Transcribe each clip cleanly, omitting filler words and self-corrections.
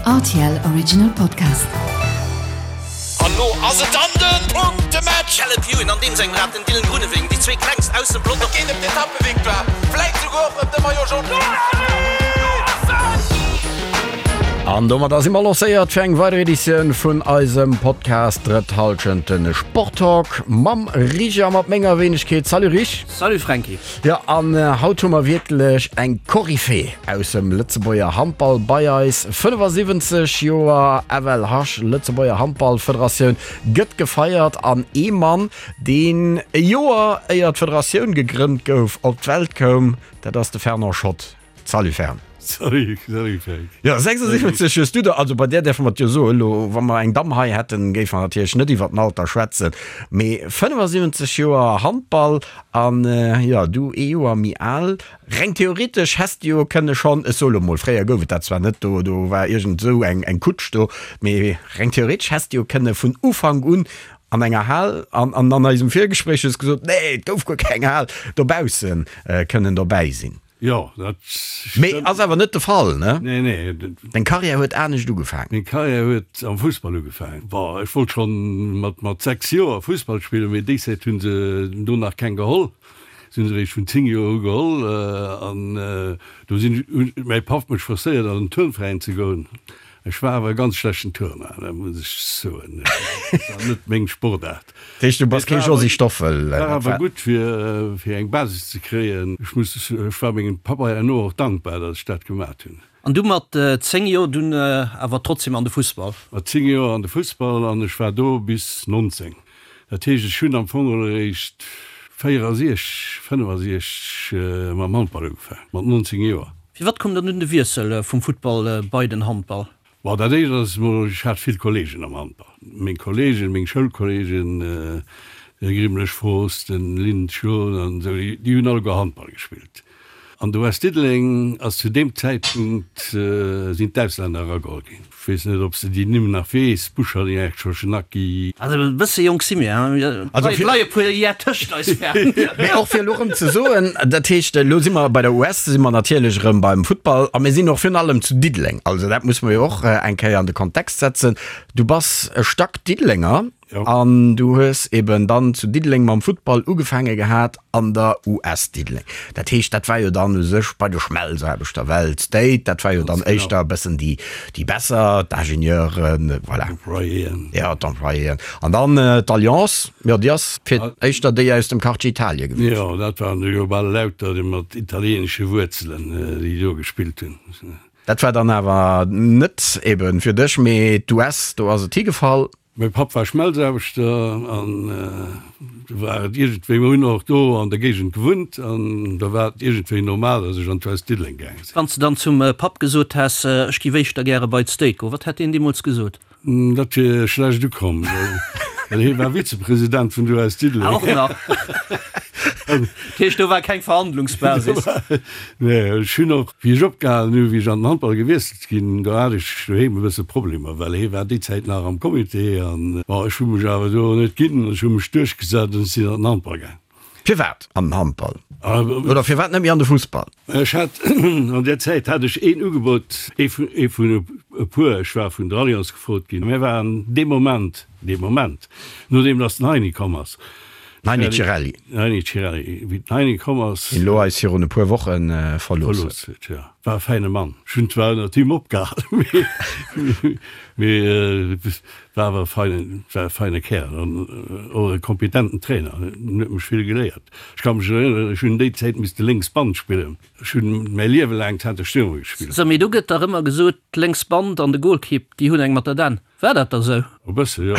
Rtl Original Podcast. An lo ass et dann den Punktematch! Caleb Ewan an deem sengem Rad den Dylan Groenewegen, déi zwee klengst aus dem Pelotong. Et geet ëm d'Etappevictoire, vläit souguer och ëm de Maillot Jaune. An domadder si mer lancéiert fir eng weider Editioun vun eisem Podcast Drëtt Hallschent, de Sporttalk mam Rich a mat menger Wéinegkeet. Salut Rich! Salut Franky! Jo, an haut hu mer wierklech eng Koryphée aus dem Lëtzebuerger Handball bei eis. 75 Joer FLH, Lëtzebuerger Handballfederatioun, gëtt gefeiert an ee Mann, deen e Joer éier d'Federatioun gegrënnt gouf, op d'Welt koum, dat ass de Fernand Schott. Salut Fern. Salut, salut Frank. Jo, 76 hues du der, also bei där däerfe mer et jo soen, elo wa mer eng Damm hei hätten, géife mer natierlech net iwwer den Alter schwätzen, mee 75 Joer Handball an jo, du ee Joer méi al. Reng theoretesch häss de jo kënne schonn, ech soe lo mol, fréier gouf et dat zwar net, do do war iergend esou eng eng Kutsch do, mee reng theoretesch häss de jo kënne vun Ufank un an enger Hal, an an an eisem Virgespréich hues gesot, nee, et gouf guer keng Hal, dobausse kënnen dobäi sinn. Jo, dat Mee stëmmt. ass awer net de Fall, ne? Nee, nee. Deng Karriär huet anescht ugefaangen. Meng Karriär huet am Fussball ugefaangen. Bon, ech wollt schonn mat, mat 6 Joer Fussball spillen, mee déi Zäit hu se do nach keng geholl. Se hu se eréischt vun 10 Joer u geholl. An do sinn, huet mäi Papp mech forcéiert an den Turnveräin ze goen. Ech war awer e ganz schlechten Turner, dat muss ech soen. Dat war net meng Sportaart. Dat heescht, du bass kee Josy Stoffel? War awer gutt, fir fir eng Basis ze kréien. Ech muss, ech war mengem Papp herno och dankbar, datt ech dat gemat hunn. An du mat 10 Joer dunn awer trotzdem an de Fussball? Mat 10 Joer an de Fussball an ech war do bis 19. Dat heescht, ech hunn am Fong geholl eréischt 64, 65 mam Handball ugefaangen, mat 19 Joer. Firwat koum dann dunn de Wiessel vum Futtball bei den Handball? Bon, dat éischt ass emol, ech hat vill Kolleegen am Handball. Meng Kolleegen, meng Schoulkolleegen, de Grimlech Frost, den Lynn Schon an esou, déi hunn alleguer Handball gespillt. An de West Diddeleng ass zu deem Zäitpunkt, sinn d'Auslänner erageholl ginn. Ech weess net, ob s de déi Nimm nach weess, Bouchardin, Schochenacki. Also e bësse jonk si mir, hein? Et leie puer Jar tëscht eis, Fern. Mee och fir elo erëm ze soen, dat heescht, elo si mer bei der US, si mer natierlech erëm beim Futtball a mir sinn och virun allem zu Diddeleng. Also dat muss mer jo och eng Kéier an de Kontext setzen. Du bass e Stack-Diddelenger. An du hues eben dann zu Diddeleng mam Futtball ugefaange gehat an der US Diddeleng. Dat heescht, dat war jo dann u sech bei de Schmelzaarbechter, well d'State, dat war jo dann éischter e bëssen déi, déi besser, d'Ingenieuren, voilà. D'Employéen. Jo, d'Employéen. An dann d'Alliance, jo, déi ass fir éischter déi aus dem Quartier Italie gewiescht. Jo, dat waren jo bal lauter déi mat italieenesche Wuerzelen, déi do gespillt hunn. Dat war dann awer net eben fir dech, mee d'US, do ass et higefall. Mäi Papp war Schmelzaarbechter an do war et iergendwéi, mir hunn och do an der Géigend gewunnt an da war et iergendwéi normal, datt ech an d'West Diddeleng gaange sinn. Wann s de dann zum Papp gesot häss, ech giff éischter gäre bei d'State goen, wat hätt deen deemools gesot? Dat wier schlecht ukomm, well hie war Vizepresident vun der US Diddeleng. Ah, och nach. Dat heescht, do war keng Verhandlungsbasis? Nee, ech hunn och, wéi ech opgehalen hunn, wéi ech an den Handball gewiesselt Ginn. Do hat ech doheem e bësse Problemer, well hie war déi Zäit nach am Comité an, bon, ech hu mech awer do net ginn, ech hu mech duerchgesat an ech sinn an den Handball gaang. Firwat an den Handball oder firwat net méi an de Fussball? Ech hat, an där Zäit hat ech een Ugebot, ee vun, ee vun e puer, ech war vun der Allianz gefrot ginn, mir waren dee Moment, dee Moment, nodeem datt den Heini komm ass, Den Heini Cirelli. Den Heini Cirelli, wéi den Heini komm ass. Deen elo eis virun e puer Woche verlooss huet. Verlooss huet, jo. War e fäine Mann. Ech hunn zwar ënnert him opgehalen, mee, mee war awer e feinen, war e feine Kärel an och e kompetenten Trainer. En huet mech vill geléiert. Ech ka mech erënneren, ech hunn déi Zäit misste lénks Band spillen. Ech hunn mäi Liewe laang Center Stürmer gespillt. Sou, mee do gëtt dach ëmmer gesot, d'lénks Band an de Golkipp, déi hunn eng mat der Dänn. War dat da sou? E bësse, jo.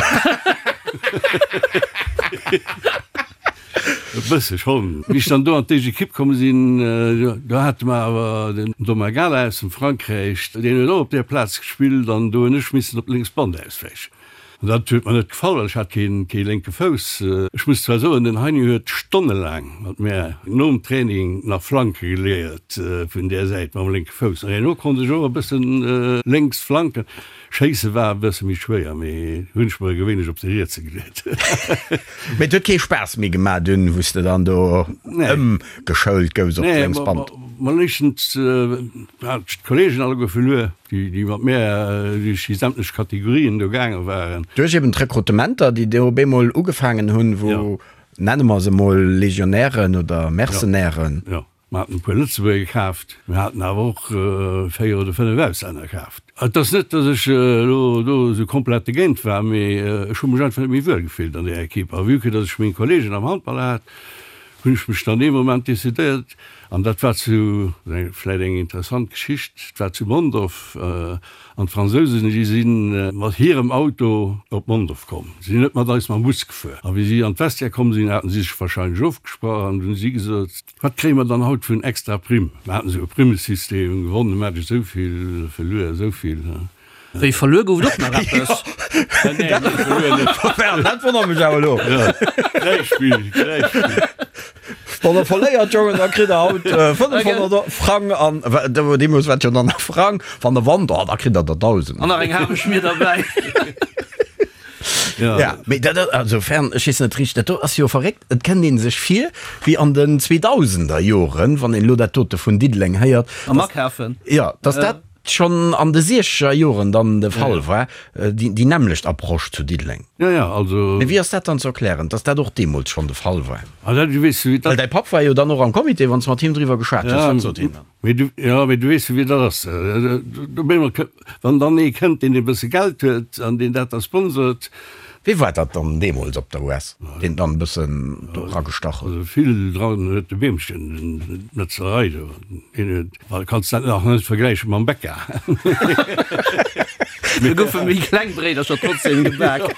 E bësse schonn. Wéi ech dann do an d'éischt Ekipp komm sinn, do hate mer awer den Domagala aus dem Frankräich, deen huet och op där Plaz gespillt an do hunn ech missen op d'lénks Band auswäichen. An dat huet mer net gefall, well ech hat kee kee lénke Fouss. Ech muss zwar soen, den Heini huet stonnelaang mat mär nom Training nach Flanke geléiert vun där Säit mam lénke Fouss. An herno konnt ech och e bëssen lénks flanken. Schéisse war e bësse méi schwéier, mee hunn ech mer gewéinlech op de rietse geleet. Mee et huet kee Spaass méi gemaach dunn, wou s de dann do ëmgeschoult gouss op d'lénks Band? Mol éischtens hat ech d'Kollegen alleguer verluer, déi mat mär duerch déi sämtlech Kategorien do gaange waren. Duerch eben d'Rekrutementer, déi do op eemol ugefaangen hunn, wou, nenne mer se mol Legionären oder Mercenairen. Jo, mer haten e puer Lëtzebuerger kaaft, mir haten awer och 4 oder 5 Auslänner kaaft. Et ass net, datt ech elo do esou komplett dogéint war, mee ech hu mech einfach net méi wuel gefillt an där Ekipp. A vue que datt ech meng Kollegen am Handball hat, hunn ech mech dann dee Moment decidéiert, an dat war zu, vläit eng interessant Geschicht, et war zu Mondorf, an d'Fransousen, déi si mat hirem Auto op Mondorf komm, si sinn net mat eis mam Bus gefuer. A wéi si an d'Vestiaire komm sinn, haten si sech wahrscheinlech ofgesprach an hunn si gesot, Wat kréie mer dann haut vun extra Primm? Mer haten esou e Primmesystem, gewonne Match esou vill, verluer esou vill. Wéi verluer gouf et och nach eppes? Dat wonnert mech awer elo. Wann der verléiert, Jongen, da kritt der haut 500 Frang an deemools war et jo dann nach Frang. Wann der wannt, oh, da kritt der der 1.000. An nach eng Hameschmier derbäi. Ja, mee dat, also fern, ech weess net richteg, dat do ass jo verréckt. Et kënnt ee sech vir wéi an den 2000er Joren, wann een elo dat dote vun Diddeleng héiert. Am Akafen. Jo, dass dat schonn an de siechzeger Joren dann de Fall war, déi nämmlecht Approche zu Diddeleng. Jo, jo, also. Mee wéi ass dat dann ze erklären, dass dat och deemools schonn de Fall war? Ah, dat, du weess, wéi dat. Well däi Papp war jo dann och am Comité, wann s de mat him driwwer geschwat hues, wat sot hien dann? Mee du, jo, mee du weess jo, wéi dat ass. Do brénge mer, wann dann ee kënnt, deen e bësse Geld huet an deen dat da sponsort. Wee war dat dann deemools op der US, deen dann e bëssen do eragestach huet? Also vill dran huet de Beemchen, d'Metzlerei do, deen huet. Well kanns dat nach net vergläiche mam Bäcker. Do goufe méi kleng Bréidercher trotzdem gebak.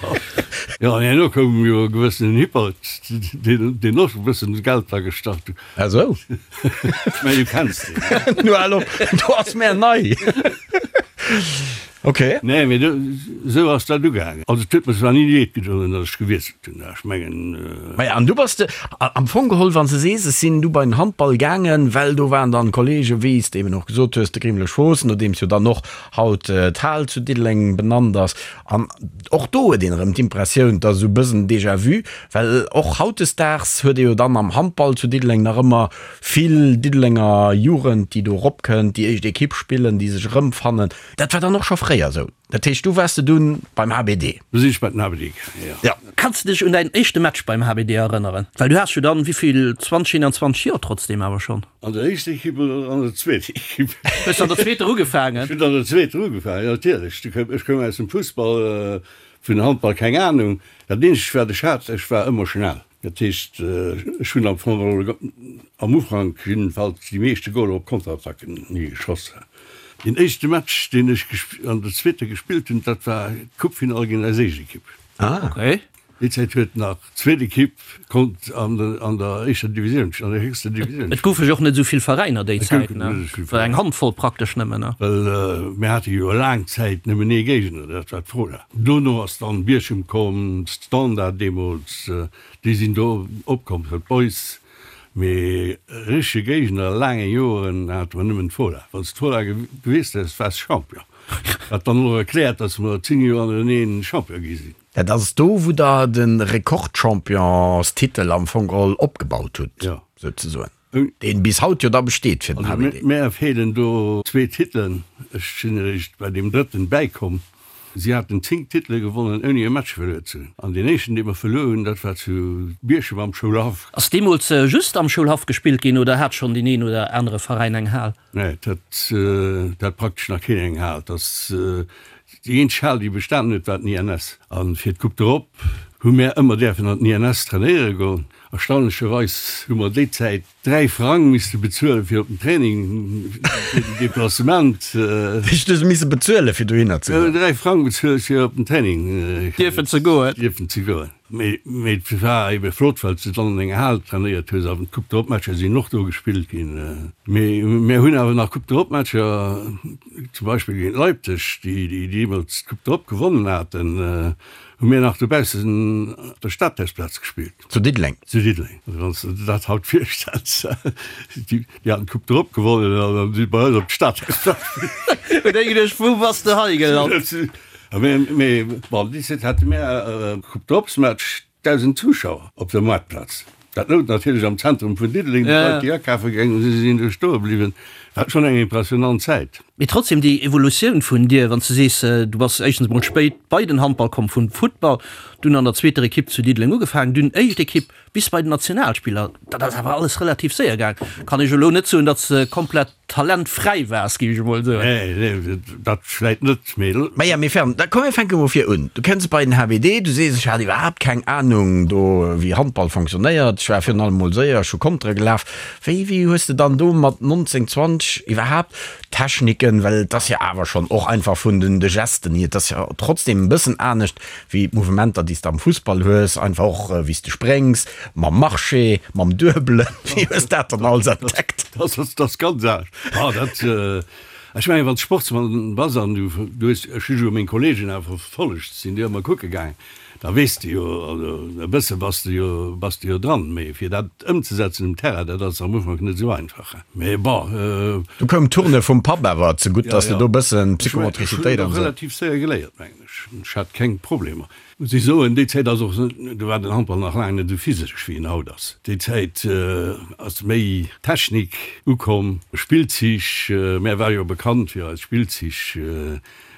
Jo, an herno koum jo e gewëssenen Hippert, deen och e bëssen Geld dra gestach huet. Ah sou. Ech mengen, du kenns deen. Nu hal op, do ass mär nei. Ok. Nee, mee do, esou ass dat ugaangen. Also et huet mer zwar ni leed gedoen, datt ech gewiesselt hunn, ech mengen. Maja, an du bass de, am Fong geholl, wann s de sees, ech sinn du bei den Handball gaangen, well do waren dann Kollegen, wéi s de eben och gesot hues, de Grimlech Voss, nodeems jo dann och haut d'Hal zu Diddeleng benannt ass. An och do huet een erëm d'Impressioun, et ass esou e bëssen Déjà-vu, well och hautdesdaags huet ee jo dann am Handball zu Diddeleng nach ëmmer vill Diddelenger Jugend, déi do eropkënnt, déi éischt Ekipp spillen, déi sech erëmfannen. Dat war dann och scho fréier esou. Dat heescht, du waars de dunn beim HBD? Du sinn ech bei den HBD gaangen, jo. Ja. Kanns de dech un däin éischte Match beim HBD erënneren? Well du has jo dann, wéivill, 20, 21 Joer trotzdem awer schonn. An der éischter Ekipp oder an der zweeter Ekipp? Hues de an der zweeter ugefaangen? Ech hunn an der zweeter ugefaangen, jo natierlech. Ech koum aus dem Fussball, vun Handball keng Anung. Dat eenzegt wat ech hat, ech war ëmmer schnell. Dat heescht, ech hunn am Fong am Ufank jiddefalls déi meeschte Goler op Konterattacken geschoss. Deen éischte Match, deen ech an der zweeter gespillt hunn, dat war d'Coupefinall géint eis éischt Ekipp. Déi Zäit huet nach d'zweet Ekipp konnt an der éischter Divisioun, an der héchster Divisioun. Et goufe jo och net esou vill Veräiner déi Zäit, ne? War eng Handvoll praktesch nëmmen, ne? Well mir hate jo laang Zäit nëmmen ee Géigner, dat war d'Fola. Dono ass dann Bierchem komm, Standard deemools, déi sinn do opkomm, d'Boys. Mee richtege Géigner laange Joren hate mer nëmmen d'Fola. Wann s d'Fola gewiesst häss, waars Champion. Wat dann och erkläert, datt mer 10 Joer hannereneen Champion gi sinn. Dat ass do, wou der de Rekordchampionstitel am Fong geholl opgebaut hutt, souzesoen. Deen bis haut jo da besteet fir den HBD. Mär feelen do zwee Titelen. Ech sinn eréischt bei deem drëtten bäikomm. Si haten 10 Titele gewonnen ouni e Match verluer ze hunn. An deen éischten dee mer verluer hunn, dat war zu Bierchem am Schoulhaff. Ass deemools just am Schoulhaff gespillt ginn oder hat schonn deen een oder anere Veräin eng Hal? Nee, et hat, et hat praktesch nach keen eng Hal. Et ass déi eenzeg Hal déi bestanen huet, war den INS. A fir d'Coupe d'Europe hu mär ëmmer däerfen an den INS trainéiere goen. Erstaunlecherweis hu mer déi Zäit 3 Frang misste bezuelen fir op den Training, fir den Deplacement. Wéi du se misse bezuelen fir dohinner ze goen? 3 Frang bezuelt fir op den Training dierfen ze goen. Dierfen ze goen. Mee et war ebe flott, well s de dann an enger Hal trainéiert hues. An d'Coupe d'Europe Matcher sinn och do gespillt ginn. Mee mir hunn awer nach Coupe d'Europe Matcher, zum Beispill géint Leipzig, déi deemools d'Coupe d'Europe gewonnen haten, hu mir nach dobaussen op der Stadhausplaz gespillt. Zu Diddeleng? Zu Diddeleng. Also wann s de der dat haut virstells, déi haten d'Coupe d'Europe gewonnen an dann si bei eis op d'Stadhausplaz. Huet ee geduecht, wou bass de hei gelant? Mee bon, déi Zäit hate mir e Coupe d'Europesmatch, 1.000 Zuschauer op der Moartplaz. Dat louch natierlech am Zentrum vun Diddeleng, déi Leit, déi akafe gaange sinn, sinn do stoe bliwwen. War schonn eng impressionant Zäit. Mee trotzdem, déi Evolutioun vun dir, wann s de sees, du bass éischtens emol spéit bei den Handball komm vum Futtball, dunn an der zweeter Ekipp zu Diddeleng ugefaangen, dunn éischt Ekipp bis bei den Nationalspiller, dat ass awer alles relativ séier gaang. Kann ech elo net soen, datt s de komplett Talentfräi waars, géif ech emol soen. Nee, nee, dat vläit net, mee. Maja, mee Fern, da komm mir fänke mol vir un. Du kënns bei den HBD, du sees, ech hat iwwerhaapt keng Anung do, wéi Handball fonctionnéiert, ech war virun allem mol séier, ech hu Kontere gelaf. Wéi, wéi hues de dann do mat 19, 20 iwwerhaapt d'Techniken, well et ass jo awer schonn och einfach vun den de Gesten hier, et ass jo trotzdem e bëssen anescht wéi d'Mouvementer, déi s de am Fussball hues, einfach och wéi s de spréngs, mam Marché, mam Duebelen, wéi hues dat dann alles entdeckt? Dat ass, dat ass ganz anescht. Ah, dat, ech mengen, wann s Sportsmann bass an du, du hues, ech hu jo meng Kollegen awer verfollegt, sinn déi ëmmer kucke gaangen, da weess de jo, also e bësse bass de jo, bass de jo dran, mee fir dat ëmzesetzen um Terrain, dat ass am Ufank net esou einfach. Mee bon. Du koum d'Tourne vum Papp awer zegutt, dass de do e bëssen Psychomotricitéit an esou. Ech hunn och relativ séier geléiert, mengen ech. Ech hat keng Problemer. Muss ech soen, déi Zäit ass och, do war den Handball nach laang net esou physesch wéi en haut ass. Déi Zäit ass méi Technik ukomm, Spillzich, mär ware jo bekannt fir eis Spillzich,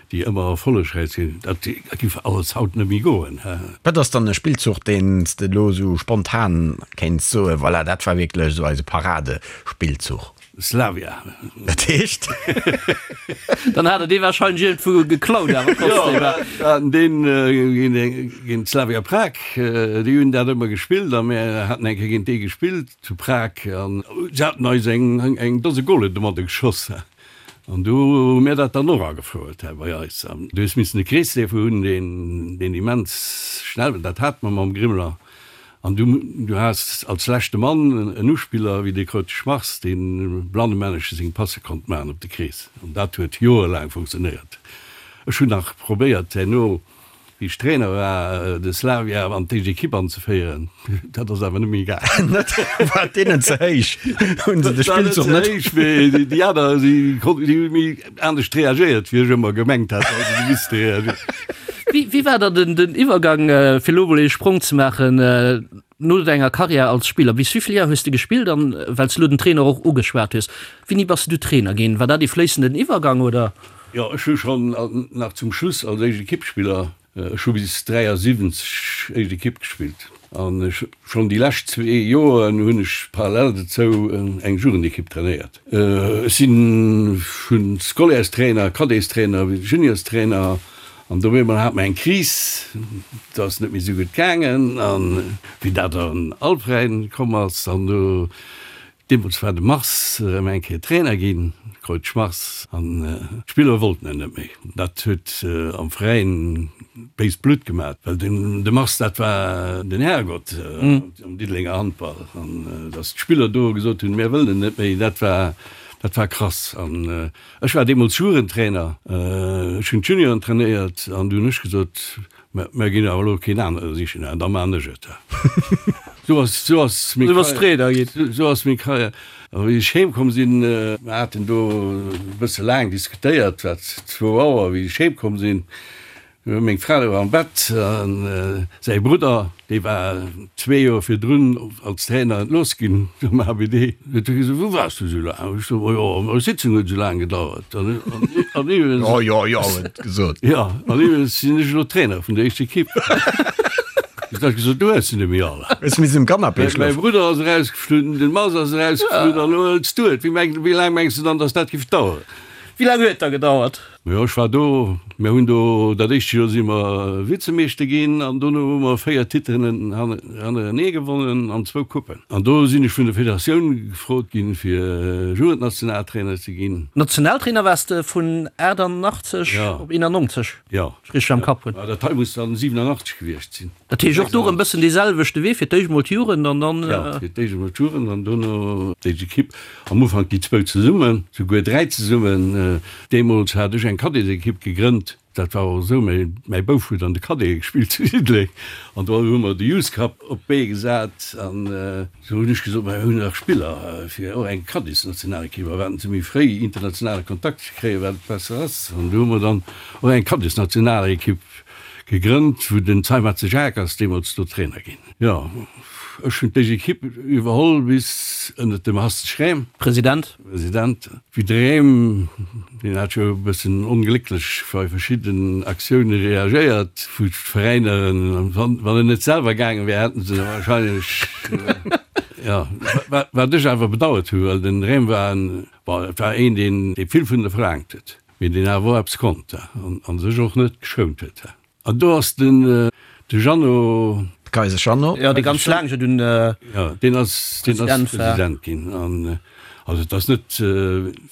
déi ëmmer erfollegräich sinn. Dat giff alles haut net méi goen. Wat ass dann e Spillzuch, deen s de elo esou spontan kéints soen, voilà, dat war wierklech esou eise Paradespillzuch? Slavia. Dat heescht? Dann hat er dee wahrscheinlech iergendwou geklaut awer trotzdem. Jo, mir haten deen géint Slavia Prag, déi hunn dat ëmmer gespillt a mir haten eng Kéier géint déi gespillt zu Prag an se haten eis eng eng Dose Golen domadder geschoss an du hu mir dat dann och agefouert hei bei eis. An du hues missen e Kreesleefer hunn, deen deen immens schnell war, dat hate mer mam Grimler. An du, du has als leschte Mann en Uspiller wéi de Kreutz Schmars, dee blannemännesche seng Passe konnt maachen op de Krees. An dat huet joerelaang funktionéiert. Ech hunn nach probéiert herno, wéi ech Trainer war, de Slavia an d'éischt Ekipp anzeféieren. Dat ass awer net méi gaangen. Net? War et deenen ze héich? Hunn se de Spillzuch net? War net ze héich, mee déi aner, déi konnten, déi hu méi anescht reagéiert, wéi ech ëmmer gemengt hat, datt se misste reagéieren. Wéi war dann den Iwwergang, fir elo emol ee Sprong ze maachen, no denger Karriär als Spiller? Bis wéi vill Joer hues de gespillt? An well s de elo den Trainer och ugeschwat hues, wéini bass de du Trainer ginn? War dat ee fléissenden Iwwergang, oder? Jo, ech hu schonn nach zum Schluss als éischt Ekippspiller, ech hu bis 73 éischt Ekipp gespillt an ech schonn déi lescht zwee Joren hunn ech parallel dozou eng Jugendekipp trainéiert. Ech si vu Scolaires-Trainer, Cadets-Trainer, Juniors-Trainer an do op eemol hat mer eng Kris, et ass net méi esou gutt gaangen an wéi dat an all Veräin komm ass an do deemools war de Mars erëm eng Kéier Trainer ginn, Kreutsch Mars, an d'Spiller wollten en net méi. Dat huet am Veräin béist Blutt gemat, well den de Mars dat war den Herrgott am Diddelenger Handball an datt d'Spiller do gesot hunn, mir wëllen en net méi, dat war dat war krass. An ech war deemools Jugendtrainer, ech hunn d'Junioren trainéiert an du hunn ech gesot, mä mir ginn awer elo keen anere sichen, da man ech et. Sou ass sou ass meng Karriär, sou ass meng Karriär. A wéi ech heem komm sinn, mir haten do e bësse laang diskutéiert, wat zwou Auer, wéi ech heem komm sinn, meng Fra louch am Bett a säi Brudder, dee war zwee Joer virdrun als Trainer entlooss ginn um HBD, huet du gesot, Wou waars du esou laang? Ech sot, Jo, meng Sitzung huet esou laang gedauert. An iwwregens. Jo, jo, jo, huet gesot. Jo, an iwwregens sinn ech elo Trainer vun der éischter Ekipp. Du hues gesot, du hues se net méi all. Hues missen um Canapé schlofen. Mäi Brudder ass erausgeflunn, den Mars ass erausgeflunn an elo hëls du et. Wéi laang mengs du dann, datt dat géif daueren? Wéi laang huet et da gedauert? Jo, ech war do. Mir hunn do, dat éischt Joer si mer Vizemeeschter ginn an dono hu mer 4 Titelen hannerenee gewonnen an zwou Coupen. An do sinn ech vun der Federatioun gefrot ginn, fir Jugendnationaltrainer ze ginn. Nationaltrainer waars de vun 88 op 91, Jo. ech richteg am Kapp hunn. Dat hei muss dann 87 gewiescht sinn. Dat heescht och do erëm bëssen dee selwechte Wee, fir d'éischt mol d'Jugend an dann. Jo, fir d'éischt emol d'Jugend an dono d'éischt Ekipp. Am Ufank déi zwou zesummen, souguer dräi zesummen. Deemools hat ech eng Cadetsekipp gegrënnt. Dat war och esou, mäi Bouf huet an de Cadete gespillt zu Diddeleng an do hu mer de Youth Cup op d'Bee gesat an esou hunn ech gesot, mer hunn nach Spiller fir och eng Cadetsnationalekipp a wat se méi fréi internationale Kontakt ze kréien, wat besser ass. An do hu mer dann och eng Cadetsnationalekipp Gegrënnt, wou den Zeimetze Jacques ass deemools do Trainer ginn. Jo. Ech hunn d'éischt Equipe iwwerholl bis ënnert dem Hast Schräm. President. President. Wéi de Rem, deen hat jo e bëssen onglécklech bei verschidden Aktioune reagéiert, wou d'Veräiner, wann en net selwer gaange wär, hätten se wahrscheinlech, jo, wat ech awer bedauert hu, well den Rem war en, bon, et war een, deen vill vun der verlaangt huet, mee deen awer och eppes konnt a sech och net geschount huet. An do ass den de Jeannot. De Kaiser Jeannot. Jo, dee ganz laang jo dunn Jo, deen ass, deen ass President ginn. An also et ass net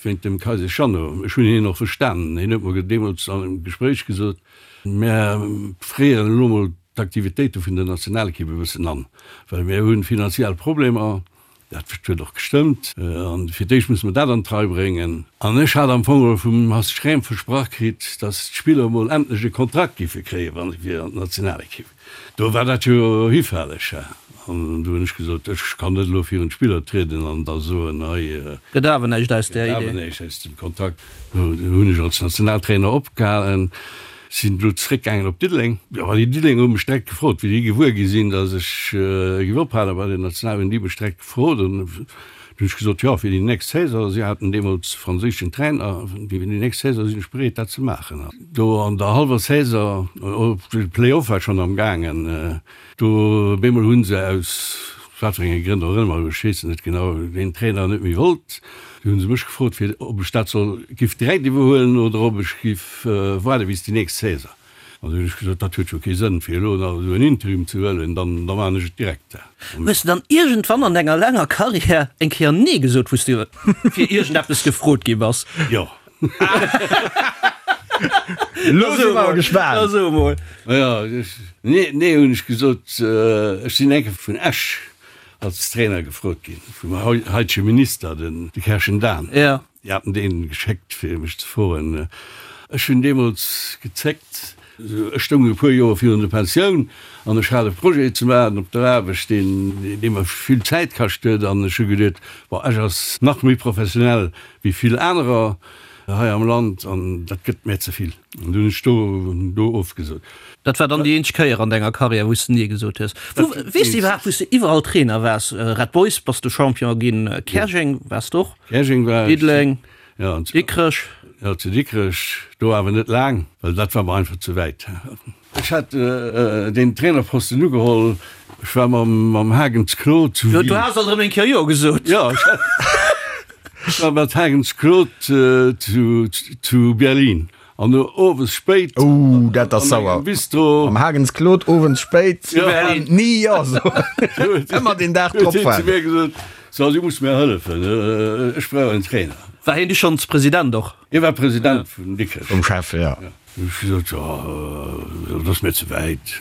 wéint dem Kaiser Jeannot. Ech hunn hien och verstanen. Hien huet mer deemools an engem Gespréich gesot, Mär fréieren elo mol d'Aktivitéite vun der Nationalekipp e bëssen an, well mär hu finanziell Problemer. Dat huet och gestëmmt. An fir d'éischt musse mer dat an d'Rei bréngen. An ech hat am Fong geholl vum Hast Schrem versprach kritt, datt d'Spiller emol endlech e Kontrakt géife kréien, wa se fir an d'Nationalekipp. Do war dat jo hifälleg. An du hunn ech gesot, ech kann net elo virun d'Spiller trieden an da soen, hei. Gëtt awer näischt aus där Idee. Gëtt awer näischt aus dem Kontrakt. Do hunn ech als Nationaltrainer opgehalen. Sinn elo zeréckgaangen op Diddeleng. Jo, déi Diddelenger hu mech direkt gefrot, wéi déi gewuer gi sinn, datt ech géif ophale bei der National, hunn déi mech direkt gefrot. An du hunn ech gesot, jo, fir déi nächst Saison, si haten deemools franséischen Trainer, fir déi nächst Saison sinn ech bereet, dat ze maachen. An do an der hallwer Saison, de Play-off war schonn am gaangen, do op eemol hu se aus wat fir enge Grënn och ëmmer, ech weess et net genau, deen Trainer net méi wollt. Du hunn se mech gefrot, fir ob ech dat soll giff direkt iwwerhuelen oder ob ech giff waarde bis déi nächst Saison. An du hunn ech gesot, dat huet jo kee Sënn, fir elo nach esou en Interim ze huelen, dann da maachen ech et direkt. Hues de dann iergendwann an denger laanger Karriär eng Kéier Nee gesot, wou s de fir iergendeppes gefrot gi bass? Jo. Elo si mer awer gespaant. Da so emol. Jo, nee, nee hunn ech gesot. Ech sinn eng Kéier vun Esch als Trainer gefrot ginn, vum haitege Minister, de Kerschen Dan. Jo. Déi haten deen geschéckt fir mech ze froen. Ech hunn deemools gezéckt. Ech stoung e puer Joer virun der Pensioun an ech hat e Projet ze maachen op der Aarbecht, deen dee mer vill Zäit kascht huet an ech hu geduet, bon, Esch ass nach méi professionell wéi vill anerer hei am Land an dat gëtt mär ze vill. An du hunn ech do do ofgesot. Dat war dann déi eenzeg Kéier an denger Karriär, wou s de Nee gesot hues. Wou, weess de iwwerhaapt, wou s de iwwerall Trainer waars? Red Boys bass du Champion ginn, Käerjeng waars de och? Käerjeng war ech. Diddeleng, Ja, an Dikrech. Ja, zu Dikrech, do awer net laang, well dat war mer einfach ze wäit. Ech hat deen Trainerposten ugeholl, ech war mam mam Hagens Claude zu Wien. Du has alt erëm eng Kéier Jo gesot. Jo, ech hat, ech war mat Hagens Claude zu zu Berlin. An no owes spéit. Ouh, dat ass sauer. An engem Bistro. Am Hagens Claude owends spéit. Zu Berlin. Ni jo soen. Ëmmer deen Dag drop Huet hien zu mir gesot, So, du muss mir hëllefen, ech brauch en Trainer. War hien du schonns President och? Hie war President vun Dikrech. Vum Chef, jo. Hu ech gesot, Jo, dat ass mir ze wäit.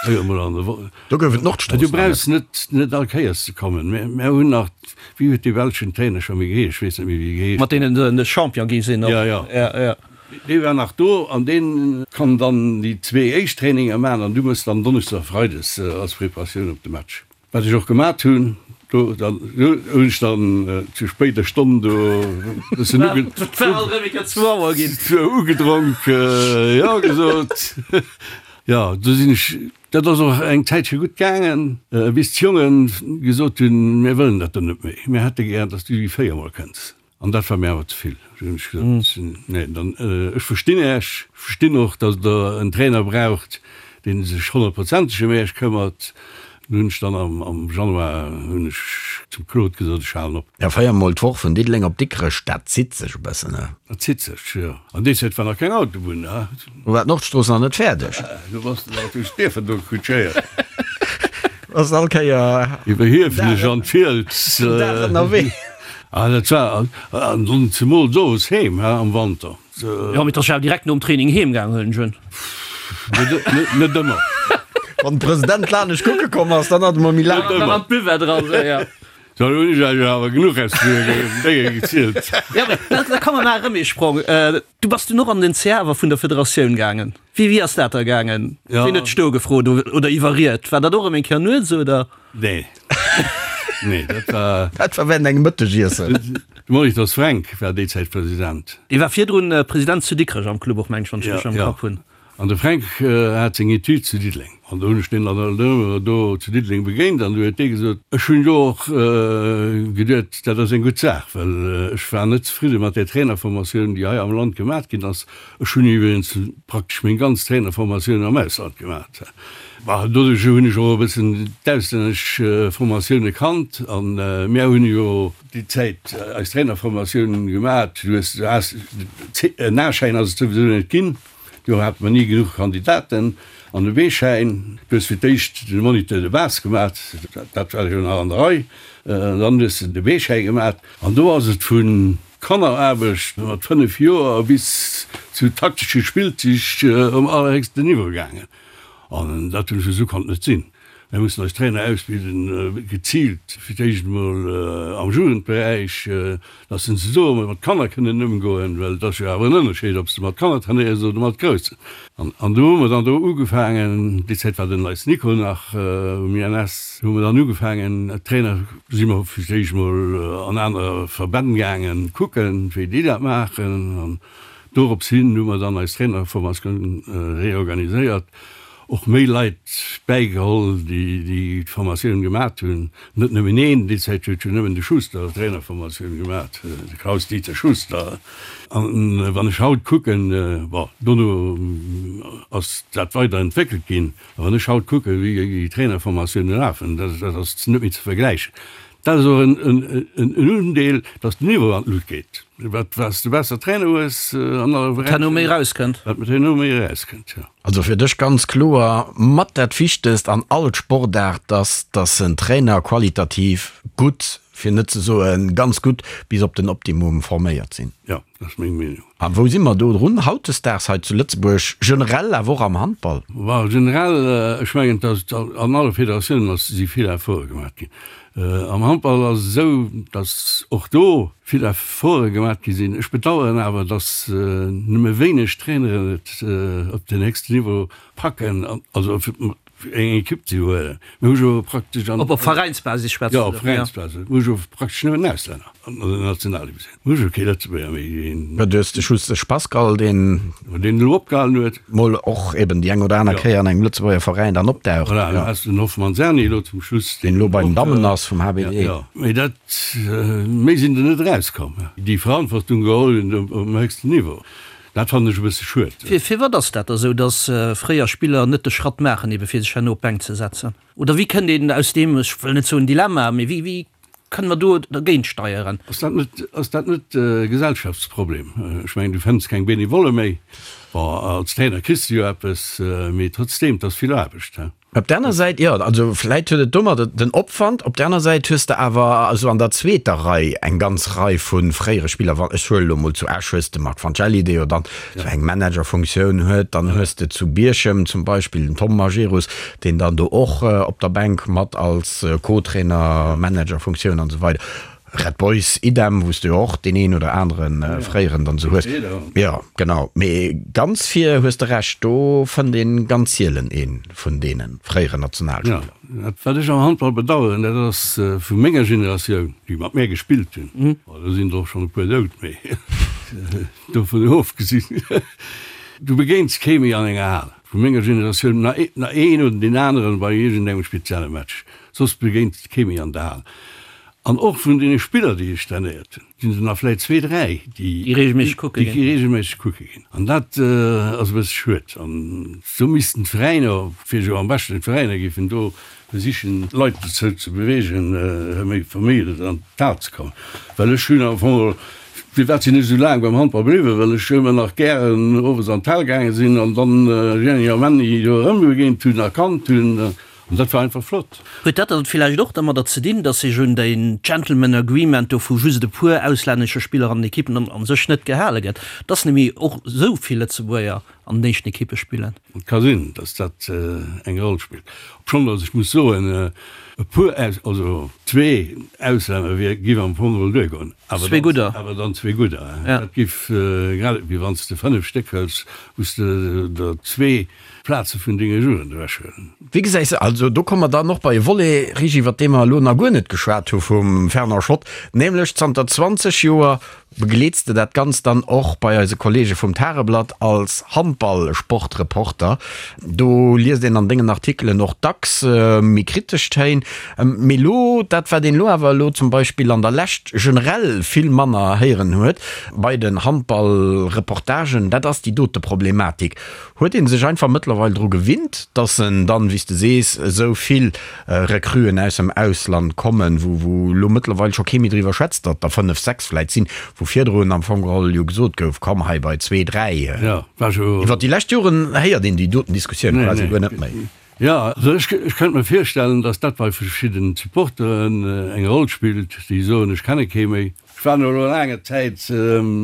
Féier mol an de Wo. Do gouf et d'Nordstrooss Du brauchs net, net all Kéiers ze kommen. Mir, mir hunn nach, wéi huet dee belschen Trainer scho méi geheescht? Ech weess net méi, wéi e geheescht Mat deenen se de Champion gi sinn och. Ja, ja. Ja, ja. Dee war nach do an dee kann dann déi zwee éischt Traininger maachen an du mëss dann Donneschdes a Freides als Preparatioun op de Match. Wat ech och gemat hunn. Do dann hunn ech dann zu spéider Stonn do e bëssen uge, Et war alt erëm eng Kéier zwou Auer ginn. ugedronk, jo gesot. Jo, do sinn ech Dat ass och eng Zäitche gutt gaangen, bis d'Jonge gesot hunn, Mir wëllen dat do net méi, mir hätte gär, datt s du déi véiermol kënns. An dat war mir awer ze vill. Du hunn ech gesot, Nee, dann, ech verstinn Äech, ech verstinn och, datt Der en Trainer braucht, dee sech honnertprozenteg ëm Äech këmmert. Du hunn ech dann am Januar hunn ech zum Claude gesot, ech halen op. Ja, véiermol d'Woch vun Diddeleng op Dikrech, dat zitt sech e bëssen, ne? Dat zitt sech, jo. An déi Zäit war nach keng Autobunn, ne? Do war d'Nordstrooss nach net fäerdeg. Du bass den Auto Stiefen do kutschéiert. Bass all Kéier. Iwwer Hiefenech an d'Fiels. Den Dag ënnerwee. Ah, dat war, an dann zemools owes heem, he, am Wanter. Jo, mee 't ass jo awer direkt nom Training heem gaang, huelen ech un. Net, net ëmmer. Wann de President lanescht kucke komm ass, dann hat e mol méi laang. Dann an d'Buvette eran, sou, ja. Dann hunn ech Iech awer genuch aus den Dénge gezielt. Jo, mee da, da komme mer erëm ee Sprong. Du bass dunn och an den CA awer vun der Federatioun gaangen. Wéi, wéi ass dat da gaangen? Ja. Wien huet dech do gefrot oder iwwerriet? War dat och erëm eng Kéier nuets, oder? Nee. Nee, dat war. Dat war während engem Mëttegiessen. De Molitor Fränk war déi Zäit President. Dee war virdrun President zu Dikrech am Club och, meng ech, wann ech richteg am Ja, Kapp hunn. An de Fränk hat seng Etüd zu Diddeleng. An do hunn ech deen dann alt ëmmer do zu Diddeleng begéint an du huet dee gesot, ech hunn jo och geduet, dat ass eng gutt Saach, well ech war net zefridde mat där Trainerformatioun, déi hei am Land gemat ginn ass. Ech hunn iwwregens praktesch meng ganz Trainerformatioun am Ausland gemat. Bah, doduerch hunn ech och e bëssen d'auslännesch Formatioune kannt an mär hunn jo déi Zäit eis Trainerformatioun gemat. Du hues, du has, en A-Schäin ass et souwisou net ginn, do hate mer ni genuch Kandidaten, an e B-Schäin, du hues fir d'éischt de Moniteur de base gemat, dat war jo nach an der Rei, dann hues de de B-Schäi gemat an do ass et vun Kanneraarbecht mat 5 Joer bis zu taktesche Spillzich um allerhéchsten Niveau gaangen. An dat hunn ech esou konnt net sinn. Mir mussen eis Trainer ausbilden, geziilt fir d'éischt emol am Jugendberäich, datt se se do emol mat Kanner kënnen ëmgoen, well et ass jo awer en Ënnerscheed, ob s de mat Kanner trainéiers oder mat Groussen. An do hu mer dann do ugefaangen, déi Zäit war den Leis Nico nach um INS, hu mer dann ugefaangen, d'Trainer si mer fir d'éischt emol an aner Verbänn gaangen kucken, wéi déi dat maachen. An dorops hin hu mer dann eis Trainerformatioun reorganiséiert, och méi Leit bäigeholl, déi déi Formatioun gemat hunn. Net nëmmen een, déi Zäit huet jo nëmmen de Schuster d'Trainerformatioun gemat, de Klaus-Dieter Schuster. An wann ech haut kucken, bon, dono ass dat weider entwéckelt ginn, A wann ech haut kucken, wéi déi Trainerformatiounen lafen, dat ass net méi ze vergläichen. Dat ass och en Undeel, datt den Niveau an d'Lut geet. Wat s de besser Trainer hues an alle Wat herno méi erauskënnt. Wat herno méi erauskënnt, jo. Also fir dech ganz kloer mat dat Wichtegst an all Sportaart, dass dass en Trainer qualitativ gutt, fir net ze soen ganz gutt, bis op den Optimum forméiert sinn. Jo, dat ass meng Meenung. A wou si mer do drun hautdesdaags hei zu Lëtzebuerg, generell awer och am Handball? Bon, generell, ech mengen, datt an alle Federatiounen ass, si vill Efforte gemaach ginn. Am Handball ass et esou, datt och do vill Efforte gemaach gi sinn. Ech bedauern awer, datt nëmme wéineg Traineren et op den héchsten Niveau packen, also eng Ekipp ze huelen. Mir hu jo praktesch an. Op op Veräinsbasis schwätzt du? Jo, op Veräinsbasis. Mir hu jo praktesch nëmmen Auslänner an der Nationaldivisioun. Mir hu jo kee Lëtzebuerger méi, deen. Jo, du hues de Schustesch Pascal, deen. Deen elo opgehalen huet. Mol och eben déi eng oder aner Kéier an engem Lëtzebuerger Veräin dann opdaucht. Voilà, du has den Hoffmann Serni elo zum Schluss. Deen elo bei den Dammen ass vum HBD. Jo, mee dat, méi sinn der net erauskomm, déi Verantwortung geholl hunn um héchsten Niveau. Dat fannen ech e bësse schued. Firwat ass dat da sou, datt fréier Spiller net de Schratt maachen, ebe fir sech herno op d'Bänk ze setzen? Oder wéi kënnt een aus deem, ech wëll net soen Dilemma, mee wéi, wéi kënne mer do dergéint steieren? Ass dat net, ass dat net e Gesellschaftsproblem? Ech mengen, du fënns keng Benevolle méi. Bon, als Trainer kriss de jo eppes, mee trotzdeem, 't ass vill Aarbecht. Op der aner Säit, jo, also vläit huet et domadder den Opwand, op der aner Säit hues de awer esou an der zweeter Rei eng ganz Rei vu fréiere Spiller, wann, ech huelen elo mol zu Esch hues de Marc Fancelli, dee jo dann esou eng Managerfunktioun huet, dann hues de zu Bierchem zum Beispill den Tom Majerus, deen dann do och op der Bänk mat als Co-Trainer, Managerfunktioun an esou weider. Red Boys, idem, wou s de jo och deen een oder anere fréieren dann esou hues. Jo, genau. Mee ganz vir hues de Recht, do fënnt een ganz sielen ee vun deene fréieren Nationalspiller. Jo, wat ech am Handball bedaueren, dat ass vu menger Generatioun, déi mat mär gespillt hunn, bon, do sinn der och schonn e puer dout, mee dovun ofgesinn, du begéins kee méi an enger Hal vu menger Generatioun, na een oder deen aneren bei iergendengem spezielle Match, soss begéins de kee méi an der Hal. An och vun deene Spiller, déi ech trainéiert hunn, sinn der nach vläicht zwee, dräi, déi regelméisseg kucke ginn. Déi regelméisseg kucke ginn. An dat ass e bësse schued. An do missten d'Veräiner, fir jo am beschten d'Veräiner géifen do versichen, d'Leit dozou ze beweegen, méi vermehrend an d'Hal ze kommen. Well ech hunn am Fong, firwat sinn ech esou laang beim Handball bliwwen? Well ech ëmmer nach gären owes an d'Hal gaange sinn an dann Jenny a Männi do erëmbegéint hunn a kannt hunn. An dat war einfach flott. Huet dat dann villäicht och dermadder ze dinn, dass sech un den Gentleman Agreement do vu just e puer auslännesche Spiller an den Ekippen an sech net gehale gëtt, dass nemmi och esou vill Lëtzebuerger an den éischten Ekippe spillen? Et ka sinn, dass dat eng Roll spillt. Obschonn dass ech muss soen, e puer, also zwee Auslänner wier, giff am Fong geholl duergoen. Awer Zwee gudder. Awer dann zwee gudder. Dat giff, grad ewéi wann s de 5 Stéck hëls, wou s de der zwee Plaze vun denge Jugend ewechhuelen. Wéi gesäis de, also do komme mer dann och bei e Volet, Rigi, iwwert dee mer elo nach guer net geschwat hu vum Fernand Schott, nämlech zanter 20 Joer begleets de dat Ganzt dann och bei eise Kollege vum Tageblatt als Handball. Handball-Sportreporter. Do liest een an dengen Artikelen och dacks méi kritesch Téin. Mee elo, dat wat een elo awer elo zum Beispill an der Lescht generell vill manner héieren huet bei den Handball-Reportagen, dat ass déi dote Problematik. Huet ee sech einfach mëttlerweil dru gewinnt, dass en dann, wéi s de sees, esou vill Recruen aus dem Ausland kommen, wou wou elo mëttlerweil scho kee méi driwwer schwätzt, datt der 5, 6 vläit sinn, wou virdrun am Fong geholl jo gesot gouf, komm hei bei zwee, dräi. Iwwer déi lescht Joren héiert een déi doten Diskussioun quasi guer net méi. Jo, also ech kënnt mer virstellen, datt dat bei verschidden Supporteren eng Roll spillt, déi soen, ech kenne kee méi. Ech war no elo laanger Zäit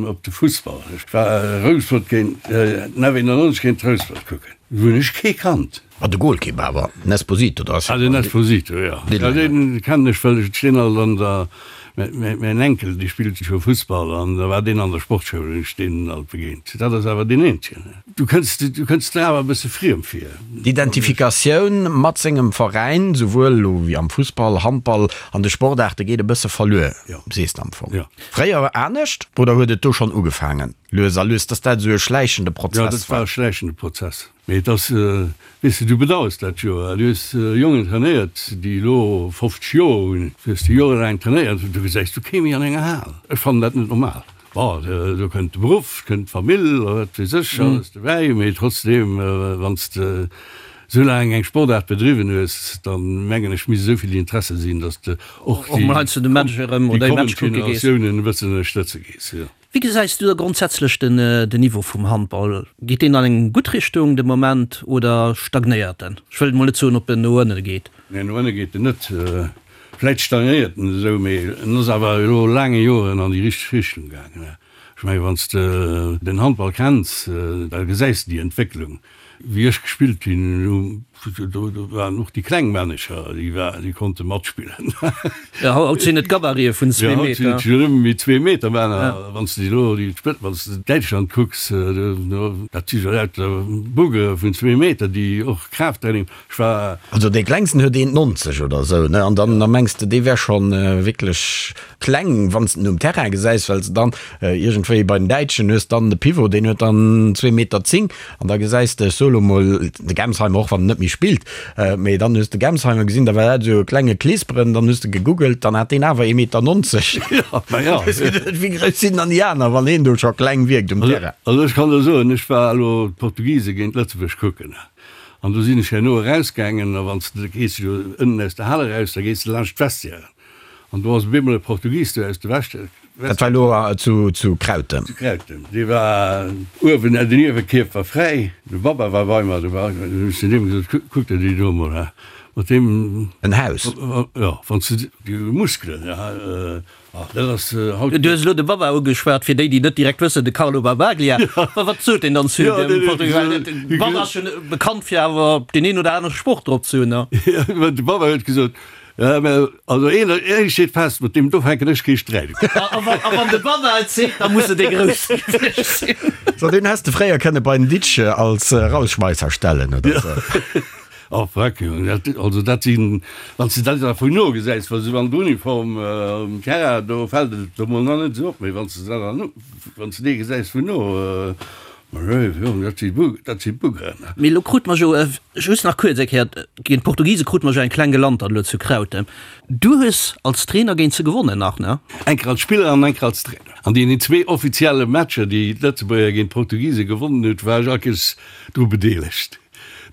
op de Fussball. Ech war Rouspert géint den F91 géint Rouspert kucken. Do hunn ech kee kannt. Ah, de Goalkeeper awer, den Esposito, dat ass Ah, den Esposito, jo. Ja, deen kennen ech, well ech deen alt an der, mäin Enkel, dee spillt jo Fussball an da war deen an der Sportschoul, hunn ech deen alt begéint. Dat ass awer deen eenzegen. Du kënns, du kënns der awer e bësse friem vir. D'Identifikatioun mat sengem Veräin, souwuel elo wéi am Fussball, Handball, an de Sportaarte geet e bësse verluer, sees de am Fong. Fréier anescht oder huet et do schonn ugefaangen, lues a lues, dass dat esou e schläichende Prozess war? Jo, dat war e schläichende Prozess. Mee et ass, weess de, du bedauers dat jo. Du hues Jongen trainéiert, déi elo 50 Joer hunn, du hues déi jorelaang trainéiert, du gesäis du kee méi an enger Hal. Ech fannen dat net normal. Bon, do kënnt de Beruff, kënnt d'Famill a wat weess ech alles dobäi, mee trotzdeem, wann s de esou laang eng Sportaart bedriwwen hues, da mengen ech, misst esou vill Interesse sinn, datt s de och déi kommend Generatiounen e bëssen ënnerstëtze gees. Wéi gesäis du da grondsätzlech den Niveau vum Handball? Geet deen an eng gutt Richtung de Moment oder stagnéiert en? Ech wëll mol net soen, ob en no ënne geet. Nee, no ënne geet en net. Vläit stagnéiert en esou, mee en ass awer elo laange Joren an déi richteg Richtung gaangen. Ech menge wann s de den Handball kenns, da gesäis de déi Entwécklung. Wéi ech gespillt hunn, do waren och déi kleng Männecher, déi war, déi konnte matspillen. Jo, haut sinn et Gabarite vun zwee Meter. Jo, haut sinn et jo nëmme méi zwee Meter Männer. Wann s de elo déi Spëtt, wann s de Däitschland kucks, dat si jo lauter Bugge vun zwee Meter, déi och Kraafttraining. Ech war. Also dee klengsten huet 1,90 oder esou, ne? An dann da mengs de, dee wär scho wierklech kleng, wann s de en um Terrain gesäis, well s de dann iergendwéi bei den Däitschen hues dann de Pivot, deen huet dann zwee Meter zéng an da gesäis de, ech soe lo mol, de Gemsheimer, och wann en net méi spillt, mee dann hues de Gemsheimer gesinn, da war dat esou e klenge Kleesperen, dann hues de gegoogelt, dann hat deen awer ee Meter 90. Jo, ma jo. Hues geduet, wéi grouss sinn dann déi aner, wann een do scho kleng wierkt um Terrain? Also ech kann der soen, ech war elo d'Portugise géint Lëtzebuerg kucken. An do sinn ech herno erausgaangen, a wann s de, da gees de jo ënnen aus der Hal eraus, da gees de laanscht d'Vestiairen. An do ass op eemol e Portugis do aus de Vestiairen. Dat war elo zu, zu Krautem? Zu Krautem. Dee war uewen, den Iewekierf war fräi, de Baba war bei mer, do war, du hunn ech zu deem gesot, Kuck der déi do emol, ha, mat deem. En Haus? Jo, wann s de déi Muskelen, ha. Ah, dat ass haut. Du hues elo de Baba ugeschwat, fir déi, déi net direkt wëssen, de Carlo Barbaglia. Wa wat sot deen dann zu dem Portugis? Well de Baba ass jo bekannt fir awer deen een oder anere Sproch drop ze hunn, ne? Jo, de Baba huet gesot, Ja, mä also een, een steet fest, mat deem do fänken ech kee Sträit un. A wann de Baba et seet, da muss et ee grousse gewiescht sinn. So, deen häss de fréier kënne bei den Ditsch als Rausschmeisser stellen, oder sou. Oh freck, Jong, dat, also dat sinn, wann s de dat da vun no gesäis, wa se an der Uniform um Terrain, do fält et der mol nach net esou op, mee wann s de dat dann, wann s de dee gesäis vun no, ma léif Jong, dat si Bu, dat si Buggeren. Mee elo krute mer jo, just nach kuerz eng Kéier, géint d'Portugise krute mer jo eng kleng Gelantert elo zu Krautem. Du hues als Trainer géint se gewonnen nach, ne? Eng Kéier als Spiller an eng Kéier als Trainer. An deenen zwee offizielle Matcher, déi d'Lëtzebuerger géint d'Portugise gewonnen huet, war ech all Kéiers dru bedeelegt.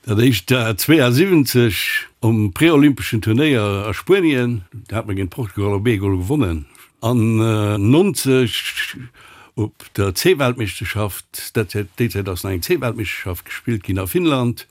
Dat éischt war 72 um preolympeschen Turnéier a Spuenien, do hat mer géint Portugal op ee Gol gewonnen. An 90 op der C-Weltmeeschterschaft, dat déi Zäit ass nach eng C-Weltmeeschterschaft gespillt ginn a Finnland,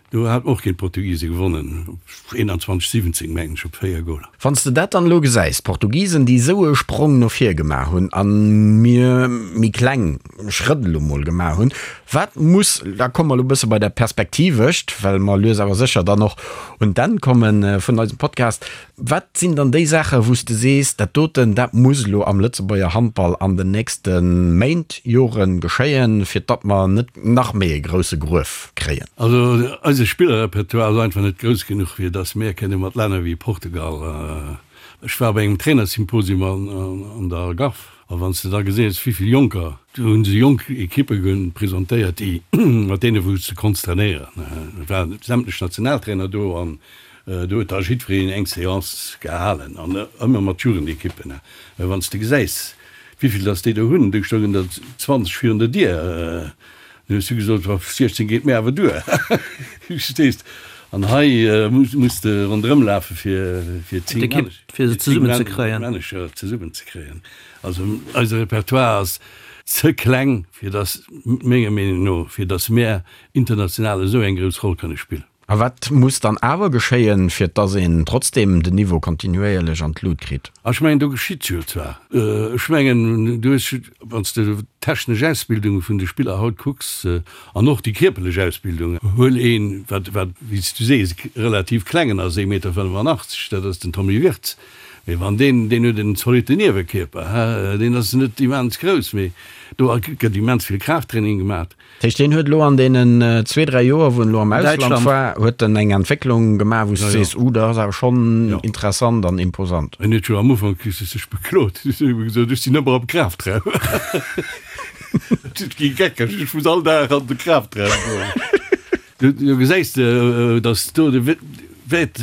do hat mer och géint d'Portugise gewonnen, 21, 17 mengen ech, op 4 Goler. Wann s de dat dann elo gesäis, d'Portugisen, déi esou e Sprong no vir gemaach hunn a mir méi kleng Schrëtt elo mol gemaach hunn, wat muss, da komme mer elo e bësse bei dat Perspektivescht, well mer lues awer sécher dann och un d'Enn komme vun eisem Podcast, wat sinn dann déi Saachen, wou s de sees, dat doten, dat muss elo am Lëtzebuerger Handball an den nächste Méint, Jore geschéien, fir datt mer net nach méi e grousse Gruef kréien? Also eise Spillerrepertoire ass einfach net grouss genuch, fir datt mir kënne mat Länner wéi Portugal, ech war bei engem Trainersymposium an der Algarve. A wann s de da geséiss, wéi vill Jonker, do hu se jonk Ekippe presentéiert, déi, mat deene wou s de konns trainéieren. Et waren sämtlech Nationaltrainer do an do huet da jiddwereen eng Seance gehalen an ëmmer mat Jugendekippen. Mä wann s de gesäis, wéi vill datt déi do hunn, do stoungen der 20 virun der Dier, Dann hues du gesot, oh, 16 geet mir awer duer. Verstees? An hei muss de ronderëm lafe fir fir 10 D'Ekipp, fir se zesummen ze kréien. Manager zesummen ze kréien. Also eise Repertoire ass ze kleng, fir datt, menger Meenung no, fir datt mär international esou eng grouss Roll kënne spillen. A wat muss dann awer geschéien, fir dass een trotzdem den Niveau kontinuéierlech an d'Lut kritt? Ech mengen, do geschitt jo zwar. Ech mengen, du hues, wann s de d'technesch Ausbildung vun de Spiller haut kucks an och déi kierperlech Ausbildung, huel een, wat, wat, wéi s du sees, relativ klengen ass, ee Meter 85, dat ass den Tommy Wirtz. Mee wann deen, deen huet en zolitte Niewenkierper, deen ass net immens grouss, mee do gëtt immens vill Kraafttraining gemaat. Dat heescht, deen huet elo an deenen zwee, dräi Joer, wou en elo am Ausland war, huet en eng Entwécklung gemaach, wou s du sees, Uh, dat ass awer schonn interessant an imposant. En huet jo am Ufank sech beklot, huet gesot, ech sinn ëmmer am Kraftraum. Et gi geckeg, ech muss all Dag an de Kraftraum goen. Do gesäis de, datt do de Wäert.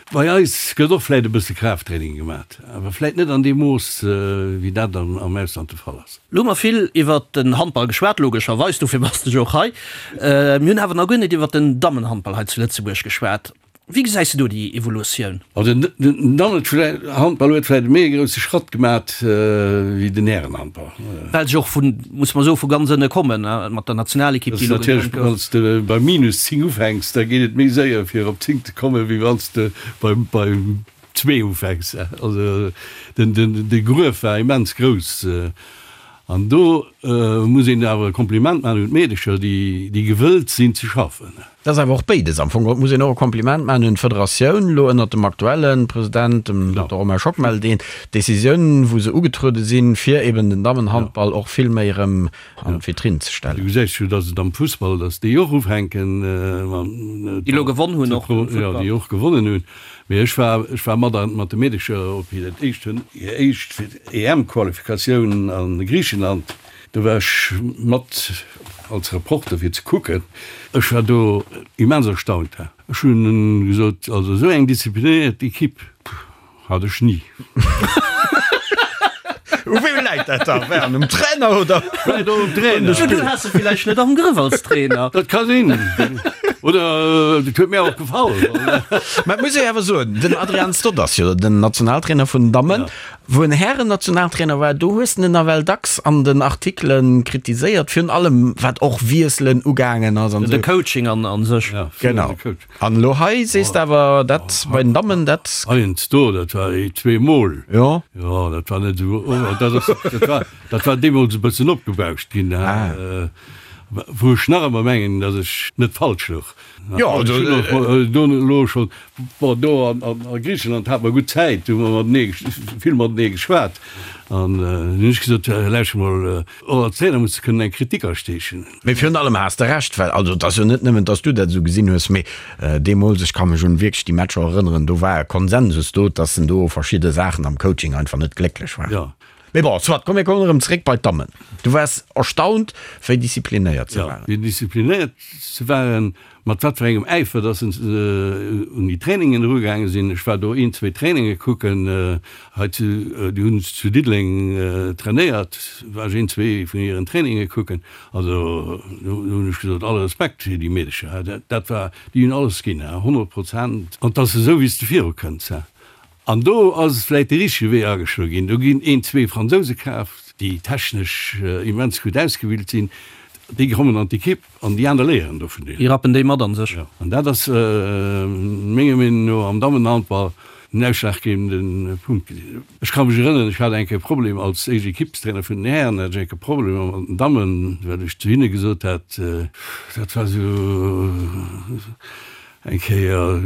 Bei eis gëtt och vläit e bësse Kraafttraining gemat, awer vläit net an deem Mooss, wéi dat am Ausland de Fall ass. Lo hu mer vill iwwert den Handball geschwat, logescherweis, dofir bass de jo och hei. Mir hunn awer nach guer net iwwert den Dammenhandball hei zu Lëtzebuerg geschwat. Wéi gesäis de do déi Evolutioun? Also den Dammenhandball huet vläit e méi e grousse Schratt gemat wéi den Härenhandball. Well se och vun, muss mer soen, vu ganz ënne kommen, mat der Nationalekipp, déi elo gegrënnt gouf. Wann s de bei minus 10 ufänks, da geet et méi séier fir op 10 ze kommen, wéi wann s de bei zwee ufänks. Also de Gruef war immens grouss. An do muss een awer e Kompliment maachen un d'Meedecher, déi gewëllt sinn ze schaffen. Dat ass awer och béides. Am Fong geholl muss een och e Kompliment maachen un d'Federatioun, elo ënnert dem aktuelle President, dem Dokter Romain Schockmel, deen d'Decisioun, wou se ugetruede sinn, fir eben den Dammenhandball och vill méi erëm an d'Vitrinn ze stellen. Du gesäis jo, datt et am Fussball, datt déi och ufänken, Déi elo gewonn hunn och am Futtball. Jo, déi och gewonnen hunn. Mee ech war, ech war mat mat de Meedecher op hiert éischt, hir éischt EM-Qualifikatioun a Griichenland. Do war ech mat als Reporter fir ze kucken. Ech war do immens erstaunt. Ech hunn gesot, also esou eng disziplinéiert Equipe hat ech ni. U wem läit dat da? Wär um Trainer oder? Vläit och um Trainer. Du has se villäicht net am Grëff als Trainer. Dat ka sinn. Oder et huet mir och gefall. Mä et muss ee awer soen, den Adrian Stott ass jo den Nationaltrainer vun den Dammen. Wou en Hären-Nationaltrainer war, do hues de en nawell dacks an den Artikele kritiséiert, virun allem wat och Wiesselen ugaangen ass an esou. De Coaching an sech. Genau. An elo hei sees de awer, dat bei den Dammen, dat. Heiansdo, dat war zweemol. Jo. Jo, dat war net esou, dat ass, dat war, dat war deemools e bëssen opgebauscht ginn, wou ech nach ëmmer mengen, datt ech net falsch louch. Jo, also. Do elo schonn, bon, do a Griichenland hate mer gutt Zäit, do hu mer matenee, vill matenee geschwat. An dunn hunn ech gesot, Lauschter mol, och als Trainer muss de kënnen eng Kritik asteechen. Mee virun allem has de Recht, well, also et ass jo net nëmmen, dass du dat esou gesinn hues, mee deemools, ech ka mech un wierklech déi Matcher erënneren, do war e Konsensus do, dass en do verschidde Saachen am Coaching einfach net glécklech war. Jo. Mee bon, soit, komm mir kommen erëm zréck bei d'Dammen. Du waars erstaunt, wéi disziplinéiert se waren. Jo, wéi disziplinéiert se waren, mat wat fir engem Äifer dass se un déi Trainingen erugaange sinn. Ech war do een, zwee Traininge kucken, hei zu, déi hunn zu Diddeleng trainéiert, war ech een, zwee vun hiren Traininge kucken. Also do hunn ech gesot, alle Respekt fir déi Meedecher, dat war, déi hunn alles ginn, 100 Prozent. An 't ass esou, wéi s de virukënns. An do ass vläit de richtege Wee ageschloe ginn. Do ginn een, zwee Fransouse kaaft, déi technesch immens gutt ausgebilt sinn. Déi kommen an d'Ekipp an déi aner léieren do vun deenen. Déi rappen déi mat an sech. Jo, an dat ass menger Meenung no am Dammenhandball den ausschlaggebende Punkt. Ech ka mech erënneren, ech hat eng Kéier e Problem als éischt Ekippstrainer vun den Hären, hat ech eng Kéier Problemer mat den Dammen, well ech zu hinne gesot hat, dat war esou, Eng Kéier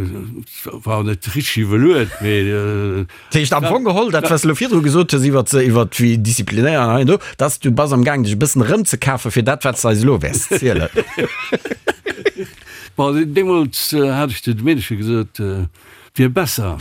war net richteg iwwerluet, mee. Dat heescht am Fong geholl, dat wat s de elo virdru gesot hues iwwert iwwert wéi disziplinéiert an hei an do, dass du bass am gaang dech e bëssen erëmzekafen fir dat wat s de eis elo wäers zielen. Bon, deemools hat ech zu de Meedercher gesot. Wier besser.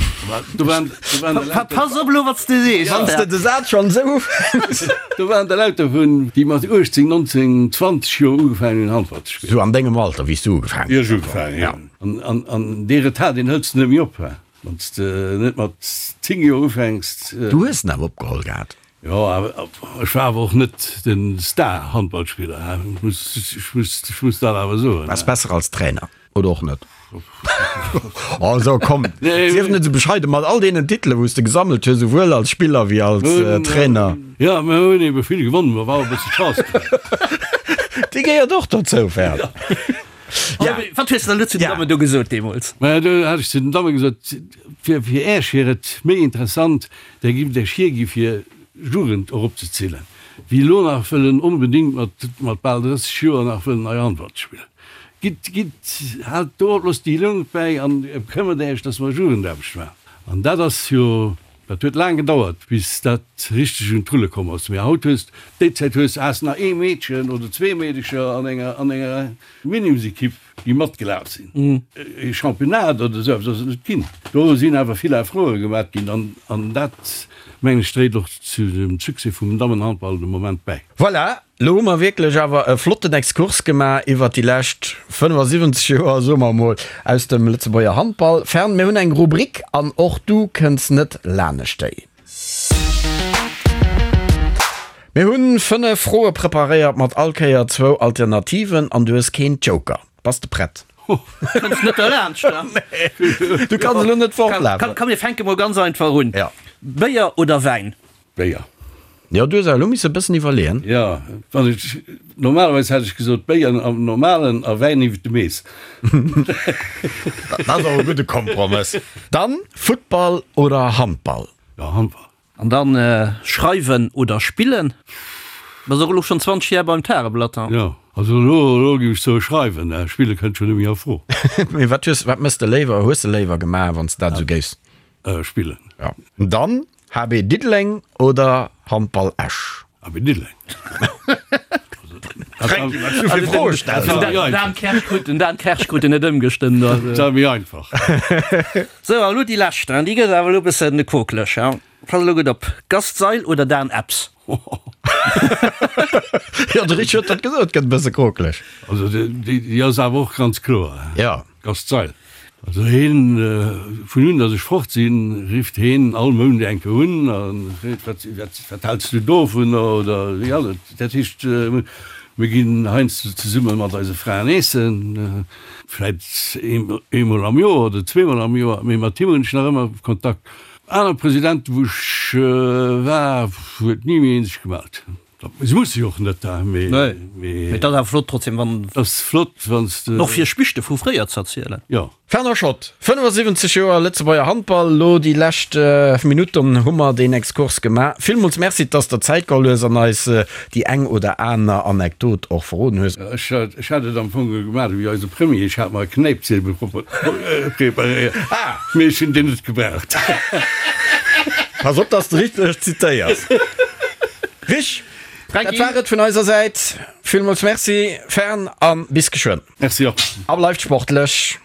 Do waren, do waren der lauter. Pass op elo wat s de sees. Wann s de de Saz schonn esou ufänks. Do waren der lauter vun, déi mat 18, 19, 20 Joer ugefaangen hunn Handball ze spillen. Sou an dengem Alter, wéi s du ugefaangen hues. Wéi ech ugefaangen hunn, jo. An, an dee Retard, deen hëls de net méi op, he. Wann s de net mat 10 Joer ufänks. Du hues en awer opgeholl gehat. Jo, awer ech war awer och net de Star-Handballspiller, he. Ech muss, ech muss, ech muss dat awer soen. Waars besser als Trainer. Oder och net? Also komm, sief net esou bescheiden, mat all deenen Titele wou s de gesammelt hues, esouwuel als Spiller wéi als Trainer. Jo, mir hunn ebe vill gewonnen, ma war och e bësse Chance dran. Déi gehéiert och dozou, Fern. Ja. Wat hues de dann elo zu den Dammen do gesot deemools? Maja, do hat ech zu den Damme gesot, fir fir Äech wier et méi interessant, Där giff Äech hiergi fir Jugend eropzezillen, wéi elo nach wëllen onbedéngt mat mat bal 30 Joer nach wëllen nei Handball ze spillen. Gitt, gitt, haalt do op, loosst déi Jonk bäi an këmmert Äech, dass mer Jugendaarbecht maachen. An dat ass jo, dat huet laang gedauert, bis dat richteg un d'Rulle komm ass. Mee haut hues, déi Zäit hues, has nach ee Meedchen oder zwee Meedecher an enger, an enger Minimsekipp, déi matgelaf sinn. E Championnat oder esou eppes ass et net ginn. Do sinn awer vill Efforte gemaat ginn an, an dat, mengen ech, dréit och zu dem Succès vum Dammenhandball de Moment bäi. Voilà, Lo hu mer wierklech awer e flotten Exkurs gemaach iwwert déi lescht 75 Joer, soe mer emol, aus dem Lëtzebuerger Handball. Fern, mir hunn eng Rubrik an och du kënns net lanescht déi. Mir hunn 5 Froe preparéiert mat all Kéier zwou Alternativen an du hues keen Joker. Bass de prett? Kënns net derlaanscht, ne? Nee, du kanns elo net fortlafen. Komm, mir fänke mol ganz einfach un. Béier oder Wäin? Béier. Jo, du hues awer elo misse e bëssen iwwerleeën. Jo, wann ech, normalerweis hätt ech gesot Béier am normalen a Wäin iwwert de Mees. Dat ass och e gudde Kompromëss. Dann Futtball oder Handball? Jo, Handball. An dann schreiwen oder spillen? Bass och elo schonn 20 Jar beim Tageblatt, hein? Jo, also elo, elo géif ech soe schreiwen, spille kënnt schonn net méi a Fro. Mee wat hues, wat mëss de léiwer, hues de léiwer gemaach, wann s de dat esou géifs? Spillen. Jo. Dann HB Diddeleng oder Handball Esch? HB Diddeleng. Fränki, wat du fir Froe stells. Den Dan Kersch krut den Dan Kersch krut en net ëmgestëmmt. Dat war méi einfach. Sou, a lo déi lescht, déi gëtt awer elo e bëssen kokeleg. Pass elo gutt op, Gast Seil oder Dan Epps? Jo, de Rich huet dat gesot, gëtt e bësse kokeleg. Also déi ass awer och ganz kloer. Jo. Gast Seil. Also heen, vun un datt ech fort sinn, rifft heen all Mount eng Kéier un a freet, wat, wat, wat häls du dovunner oder wéi ass et. Dat heescht, mir ginn heiansdo zesumme mat eise Fraen eessen, vläit eemol am Joer oder zweemol am Joer, mee mat him hunn ech nach ëmmer Kontakt. Aner Presidenten, wou ech war, huet ni méi een sech gemellt. Se musse jo och net, mee. Nee, mee et ass awer flott trotzdem, wann. Et ass flott, wann s de. Och fir Spichte vu fréier z'erzielen. Jo. Fernand Schott, 75 Joer Lëtzebuerger Handball, elo déi lescht Minutten hu mer deen Exkurs gemaach. Villmools Merci, dass der Zäit geholl hues an eis déi eng oder aner Anekdot och verroden hues. Ech hat et am Fong gemaach ewéi eise Premier, ech hat mer e Knäipziebel preparéiert, mee ech hunn deen net gebraucht. Pass op, dass de richteg zitéiers. Rich, dat war et vun eiser Säit. Villmools Merci, Fern, a bis geschwënn. Merci och. A bleift sportlech.